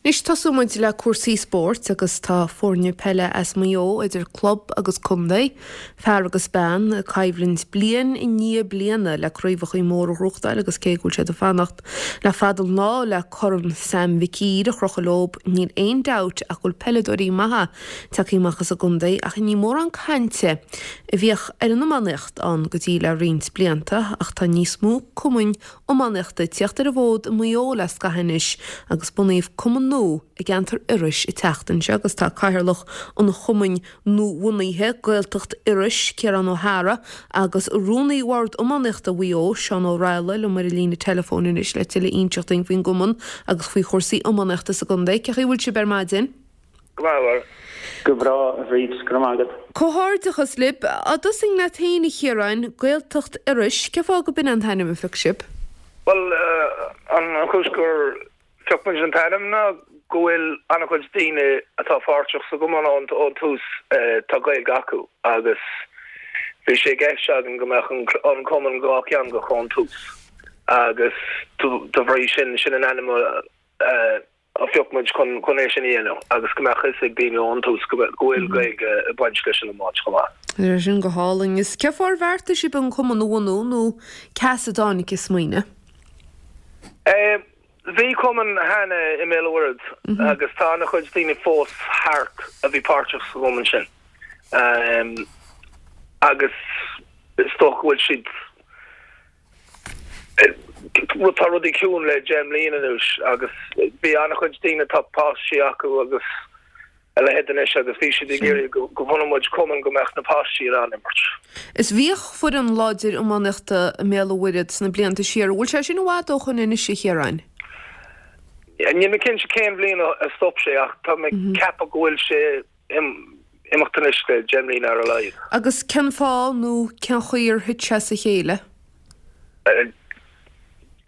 Anois tosóidh muid le cúrsaí spóirt agus tá foirne peile as Maigh Eo, idir club agus contae, fear agus bean, ag coimhlint bliain i ndiaidh bliana le craobhachaí móra a ghnóthachtáil agus cé go bhfuil siad ag fanacht le fada an lá le Corn Sam Mhic Uidhir a chrochadh leob, níl aon dabht ach go bhfuil peileadóirí maithe tagtha amach as an gcontae ach ní mórán cainte a bhíodh ar an iománaíocht ann go dtí le roinnt blianta ach tá níos mó cumainn iománaíochta ag tíocht ar an bhfód i Maigh Eo le scaitheamh anois agus bunaíodh cumann nua i gceantar Iorrais an tseachtain seo agus tá cathaoirleach an chumainn nuabhunaithe, Gaeltacht Iorrais, Ciarán Ó hEára, agus Rúnaí Bhord Iománaíochta Mhaigh Eo, Seán Ó Raghallaigh, liom ar an líne teileafóin anois le tuilleadh a inseacht dúinn faoin gcumann agus faoi chúrsaí iománaíochta sa gcontae. Cén chaoi a bhfuil sibh ar maidin? Go maith, a Mháire. Go breá, a Bhríd, go raibh maith agat. Comhghairdeachas libh. Á dtosóinn leat féin, a Chiaráin, Gaeltacht Iorrais, cén fáth go b'in an t-ainm a phioc sibh? Bhuel, an chúis gur phioc muid an t-ainm ná go bhfuil an-chuid daoine atá páirteach sa gcumann ón tús, tá Gaeilge acu agus bhí sé i gceist againn go mbeadh an cumann dhátheangach ón tús agus de bhrí sin, sin an ainm a a phioc muid chun chun é sin a dhéanamh agus go mbeadh fhios ag daoine ón tús go bhfuil Gaeilge ag baint leis an iomáint chomh maith. Tá sin go hálainn. Is cén fáth ar bheartaigh sibh an cumann a bhunú nó cé as a dtáinig an smaoineamh? Bhí cumann cheana i mBéal an Mhuirthead agus tá an-chuid daoine fós thart a bhí páirteach sa gcumann sin agus is dócha go bhfuil siad Tá rudaí ciúin le 10 mbliana anuas agus bhí an-chuid daoine atá páistí acu agus a leithéid anois agus bhí siad ag iarraidh go mbunódh muid cumann go mbeadh na páistí in ann imirt. Is bhíodh foireann láidir iománaíochta i mBéal an Mhuirthead sna blianta siar. An bhfuil sé sin i bhfad ó shoin anois, a Chiaráin? Níl mé cinnte cén bhliain a stop sé ach tá mé ag ceapadh go bhfuil sé imeacht anois le 10 mbliana ar a laghad. Agus cén fáth nó cén chaoi ar thit sé as a chéile?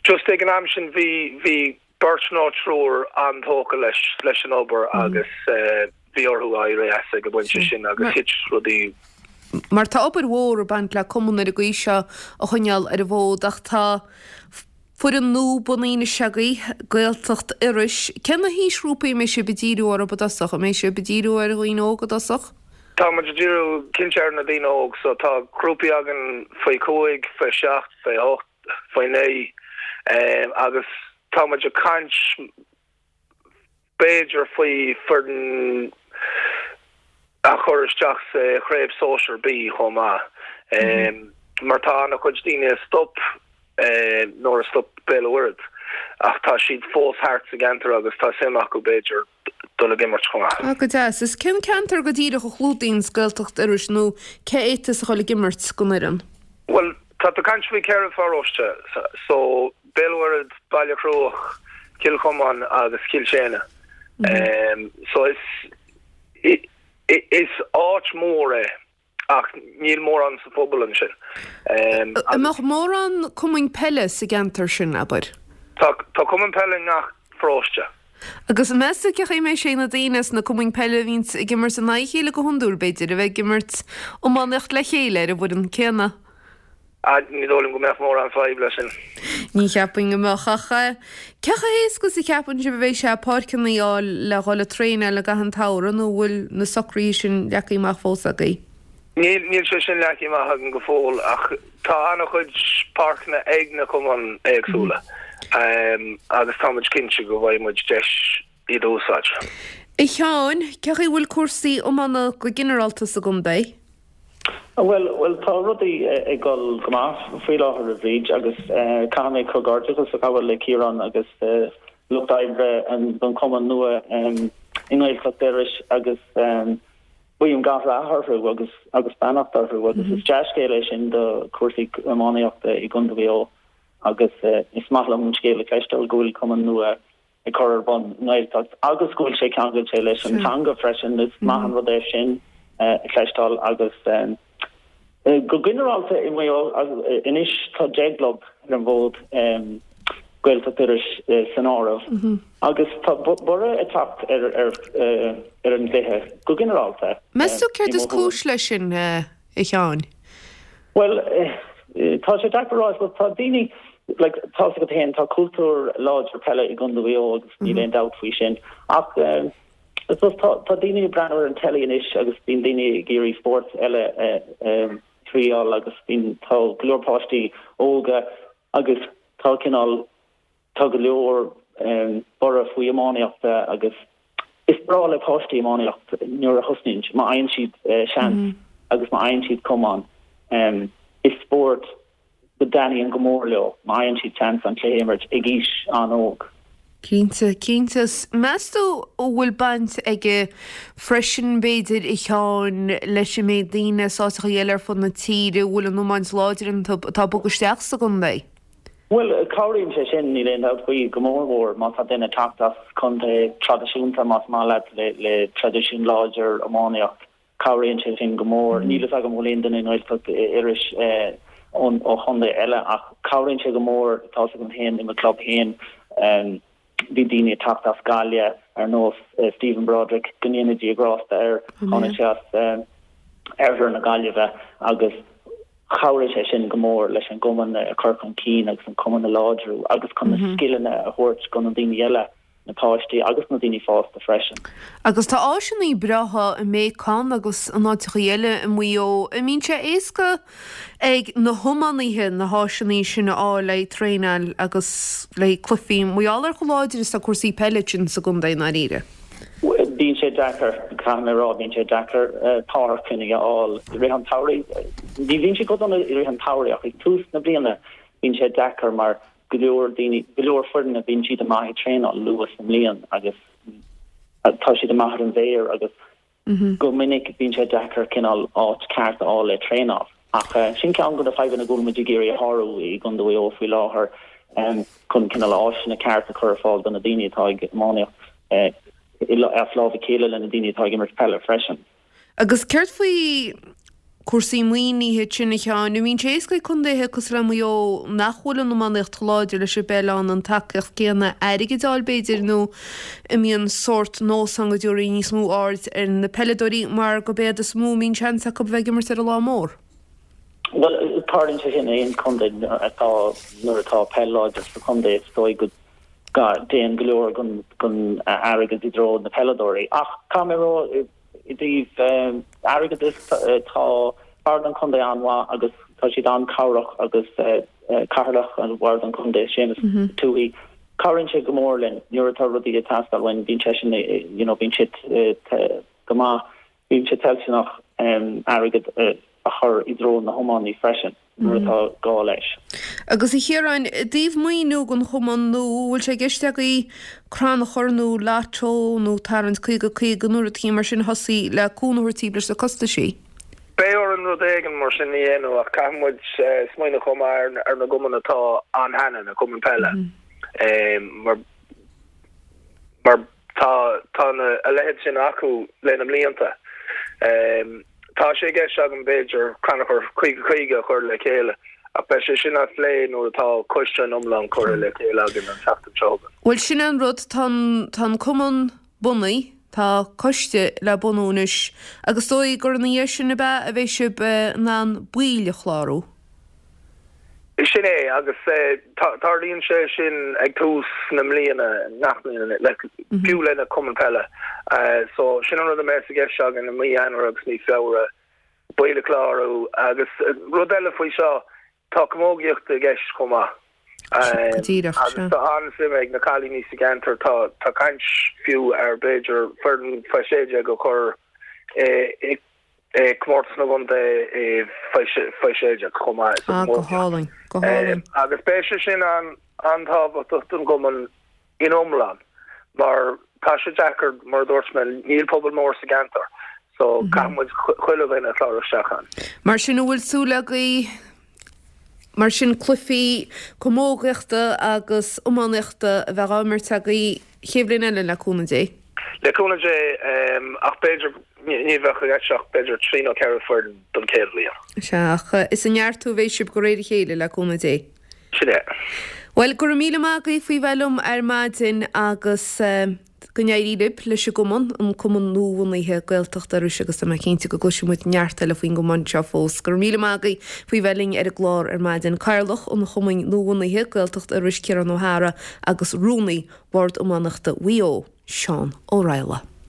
Just ag an am sin bhí bhí beirt nó triúr an-tógtha leis leis an obair agus bhí orthu éirí as ag an bpointe sin agus thit rudaí. Mar tá obair mhór ag baint le cumann ar an gcaoi seo a choinneáil ar an bhfód ach tá Foireann nua bunaithe anois agaibh, Gaeltacht Iorrais. Cé na haoisghrúpaí a mbeidh sibh ag díriú orthu i dtosach? An mbeidh sibh ag díriú ar dhaoine óga i dtosach? Tá muid ag díriú cinnte ar na daoine óg so tá grúpaí againn faoi chúig, faoi sheacht, faoi hocht, faoi naoi agus tá muid ag caint b'fhéidir faoi foireann a chur isteach sa Chraobh Sóisear B chomh maith mar tá an-chuid daoine a stop nuair a stop Béal an Mhuirthead ach tá siad fós thart sa gceantar agus tá suim acu b'fhéidir dul ag imirt chomh maith. Ah, go deas. Is cén ceantar go díreach a chlúdaíonns Gaeltacht Iorrais nó cé a fhéadfas a dhul ag imirt don fhoireann? Bhuel, tá tú ag caint faoi cheithre pharóiste, so Béal an Mhuirthead, Baile Chruaich, Cill Chomáin agus Cill tSéadhna. So is is áit mhór é ach níl mórán sa phobal ansin. An mbeadh mórán cumainn peile sa gceantar sin, abair? Tá tá cumann peile i ngach paróiste. Agus meas tú cén chaoi a mbeidh sé ag na daoine sna cumainn peile a bhíonns ag imirt in aghaidh a chéile go hiondúil, b'fhéidir, a bheith ag imirt iománaíocht le chéile ar an bhfoireann céanna? Ní dóigh liom go mbeadh mórán fadhb leis sin. Ní cheapfainn go mbeadh, ach cé chomh héasca is a cheapann sibh a bheidh sé páirceanna a fháil le dhul ag traenáil i gcaitheamh an tsamhraidh nó an bhfuil na socruithe sin leagtha amach fós agaibh? Níl, níl sé sin leagtha amach againn go fóill ach tá an-chuid páirceanna ag na cumainn éagsúla agus tá muid cinnte go bhfaighidh muid deis iad a úsáid. A Sheáin, cé chaoi a bhfuil cúrsaí iomána go ginearálta sa gcontae? Bhuel, bhuel, tá rudaí ag dul go maith faoi láthair, a Bhríd, agus caithfidh mé comhghairdeachas a ghabháil le Ciarán agus lucht oibre an chumainn nua i nGaeltacht Iorrais agus guím gach rath orthu agus agus beannacht orthu agus is dea-scéal é sin do chúrsaí iománaíochta i gContae Mhaigh Eo agus is maith liom an scéal a chloisteáil go bhfuil cumann nua ag cur ar bun i nGaeltacht agus go bhfuil sé ceangailte leis an teanga freisin. Is maith an rud é sin a chloisteáil agus go ginearálta i Maigh Eo anois tá 10 gclub ar an bhfód, Gaeltacht Iorrais san áireamh, agus tá borradh ag teacht ar ar an gcluiche go ginearálta. Meas tú céard is cúis leis sin, a Sheáin? Bhuel, tá sé deacair a rá. Tá daoine. Like, tá's agat féin, tá cultúr láidir peile i gContae Mhaigh Eo agus níl aon dabht faoi sin. Ach I suppose tá tá daoine ag breathnú ar an telly anois agus bíonn daoine ag iarraidh spóirt eile a thriáil agus bíonn tá go leor páistí óga agus tá cineál tá go leor borradh faoi iománaíocht agus is breá le páistí iománaíocht nuair a thosnaíonn, má fhaigheann siad seans agus má fhaigheann siad cumann. Is spórt go dtaitníonn go mór leo má fhaigheann siad seans an cluiche a imirt ag aois an-óg. Cinnte, cinnte. Meas tú an bhfuil baint aige freisin, b'fhéidir, a Sheáin, leis an méid daoine as áiteacha eile ar fud na tíre a bhfuil an iomáint láidir iontu atá ag bogadh isteach sa gcontae? Bhuel, cabhraíonn sé sin, níl aon dabht faoi, go mór mhór má tá duine ag teacht as contae traidisiúnta, más maith leat, le le traidisiún láidir iománaíocht. Cabhraíonn sé sin go mór. Níl fhios agam an bhfuil aon duine i nGaeltacht Iorrais ó chontae eile ach cabhraíonn sé go mór, tá's agam féin i mo chlub féin bhí daoine ag teacht as Gaillimh ar nós Stephen Broderick, go ndéana Dia grásta air, tháinig sé as oirthear na Gaillimhe agus chabhraigh sé sin go mór leis an gcumann a chur chun cinn agus an cumann a láidriú agus chun na scileanna a thabhairt do na daoine eile. na páistí agus na daoine fásta freisin. Agus tá áiseanna breátha i mBéacán agus in áiteachaí eile i Maigh Eo. An mbíonn sé éasca ag na hiománaithe na háiseanna sin a fháil le haghaidh traenáil agus le haghaidh cluichí, mar gheall ar chomh láidir is atá cúrsaí peile ansin sa gcontae i ndáiríre? Bíonn sé deacair, caithfidh mé a rá, bíonn sé deacair páirceanna a fháil i rith an tsamhraidh. Ní bhíonn sé chomh dona i rith an tsamhraidh ach ag tús na bliana bíonn sé deacair mar go leor daoine, go leor foirne, bíonn siad amach ag traenáil luath sa mbliain agus tá siad amach ar an bhféar agus go minic bíonn sé deacair cineál áit ceart a fháil le traenáil. Ach sin ceann de na fadhbanna go bhfuil muid ag iarraidh a shárú i gContae Mhaigh Eo faoi láthair chun cineál áiseanna ceart a chur ar fáil do na daoine atá ag iománaíocht as lámh a chéile le na daoine atá ag imirt peile freisin. Agus céard faoi cúrsaí maoinithe ansin, a Sheáin? An mbíonn sé éasca ag contaetha cosúil le Maigh Eo nach bhfuil an iománaíocht chomh láidir leis an bpeil ann an tacaíocht céanna airgid a fháil b'fhéidir nó an mbíonn sórt nós ann go dtabharfaí níos mó aird ar na peileadóirí mar gurb iad is mó a mbíonn seans acu a bheith ag imirt ar an lá mór? Bhuel, tarlaíonn sé sin in aon chontae atá, nuair atá peil láidir sa chontae is dóigh go dtéann go leor den airgead i dtreo na peileadóirí. Ach caithfidh mé a rá, i dtaobh airgeadais, tá Bord an Chontae an-mhaith agus tá siad an-chabhrach agus Cathaoirleach an Bhord an Chontae, Séamus Tuohy, cabhraíonn sé go mór linn nuair atá rudaí ag teastáil uainn, bíonn seisean, you know, bíonn sé go maith. Bíonn sé toilteanach airgead a chur i dtreo na hiománaí freisin nuair atá gá leis. Agus a Chiaráin, i dtaobh maoiniú don chumann nua, an bhfuil sé i gceist agaibh crannchur nó lotto nó tarraingt 50 50 nó rudaí mar sin a thosaí le cúnamh a thabhairt daoibh leis na costaisí? Beidh orainn rud éigin mar sin a dhéanamh ach caithfidh muid smaoineamh chomh maith ar na gcumainn atá ann cheana, na cumainn peile, mar mar Tá tá na a leithéid sin acu le na mblianta. Tá sé i gceist agam b'fhéidir crannchur 50 50 a chur le chéile ach beidh sé sin á phlé nuair atá coiste an iomlán curtha le chéile againn an tseachtain seo chugainn. Bhuel sin é an rud, tá an tá an cumann bunaithe, tá coiste le bunú anois agus is dóigh gur ina dhiaidh sin ab ea a bheidh sibh in ann baill a chlárú? Sin é, agus tarlaíonn sé sin ag tús na mbliana, ngach bliain, fiú le na cumainn peile. So, sin an rud a mbeas i gceist againn i mí Eanáir agus mí Feabhra, baill a chlárú. Agus rud eile faoi seo, tá camógaíocht i gceist chomh maith. Go díreach, sea. Agus tá an-suim ag na cailíní sa gceantar, tá tá caint fiú ar b'fhéidir foireann faoi 16 a chur i Comórtas na gContae faoi 16 chomh maith sa Ah, go hálainn, go hálainn. Agus beidh sé sin an-tábhachtach don gcumann in iomlán mar tá sé deacair, mar a dúirt mé, níl pobal mór sa gceantar so caithfidh muid chuile dhuine a chlárú isteach ann. Mar sin an bhfuil súil agaibh mar sin cluichí camógaíochta agus iománaíochta a bheith á imirt agaibh chéad bhliain eile le cúnamh Dé? Le cúnamh Dé, ach b'fhéidir ní bheadh i gceist ach b'fhéidir trí nó ceithre foireann don chéad bhliain. Sea, ach is ag neartú a bheidh sibh de réir a chéile, le cúnamh Dé. Sin é. Bhuel, go raibh míle maith agaibh faoi bheith liom ar maidin agus. Go n-éirí libh leis an gcumann, an cumann nuabhunaithe Gaeltacht Iorrais agus tá mé cinnte go gcloisfidh muid neart eile faoin gcumann seo fós. Go raibh míle maith agaibh faoi bheith linn ar an gclár ar maidin. Cathaoirleach an chumainn nuabhunaithe Gaeltacht Iorrais Ciarán Ó hEára agus Rúnaí Bhord Iománaíochta Mhaigh Eo, Seán Ó Raghallaigh.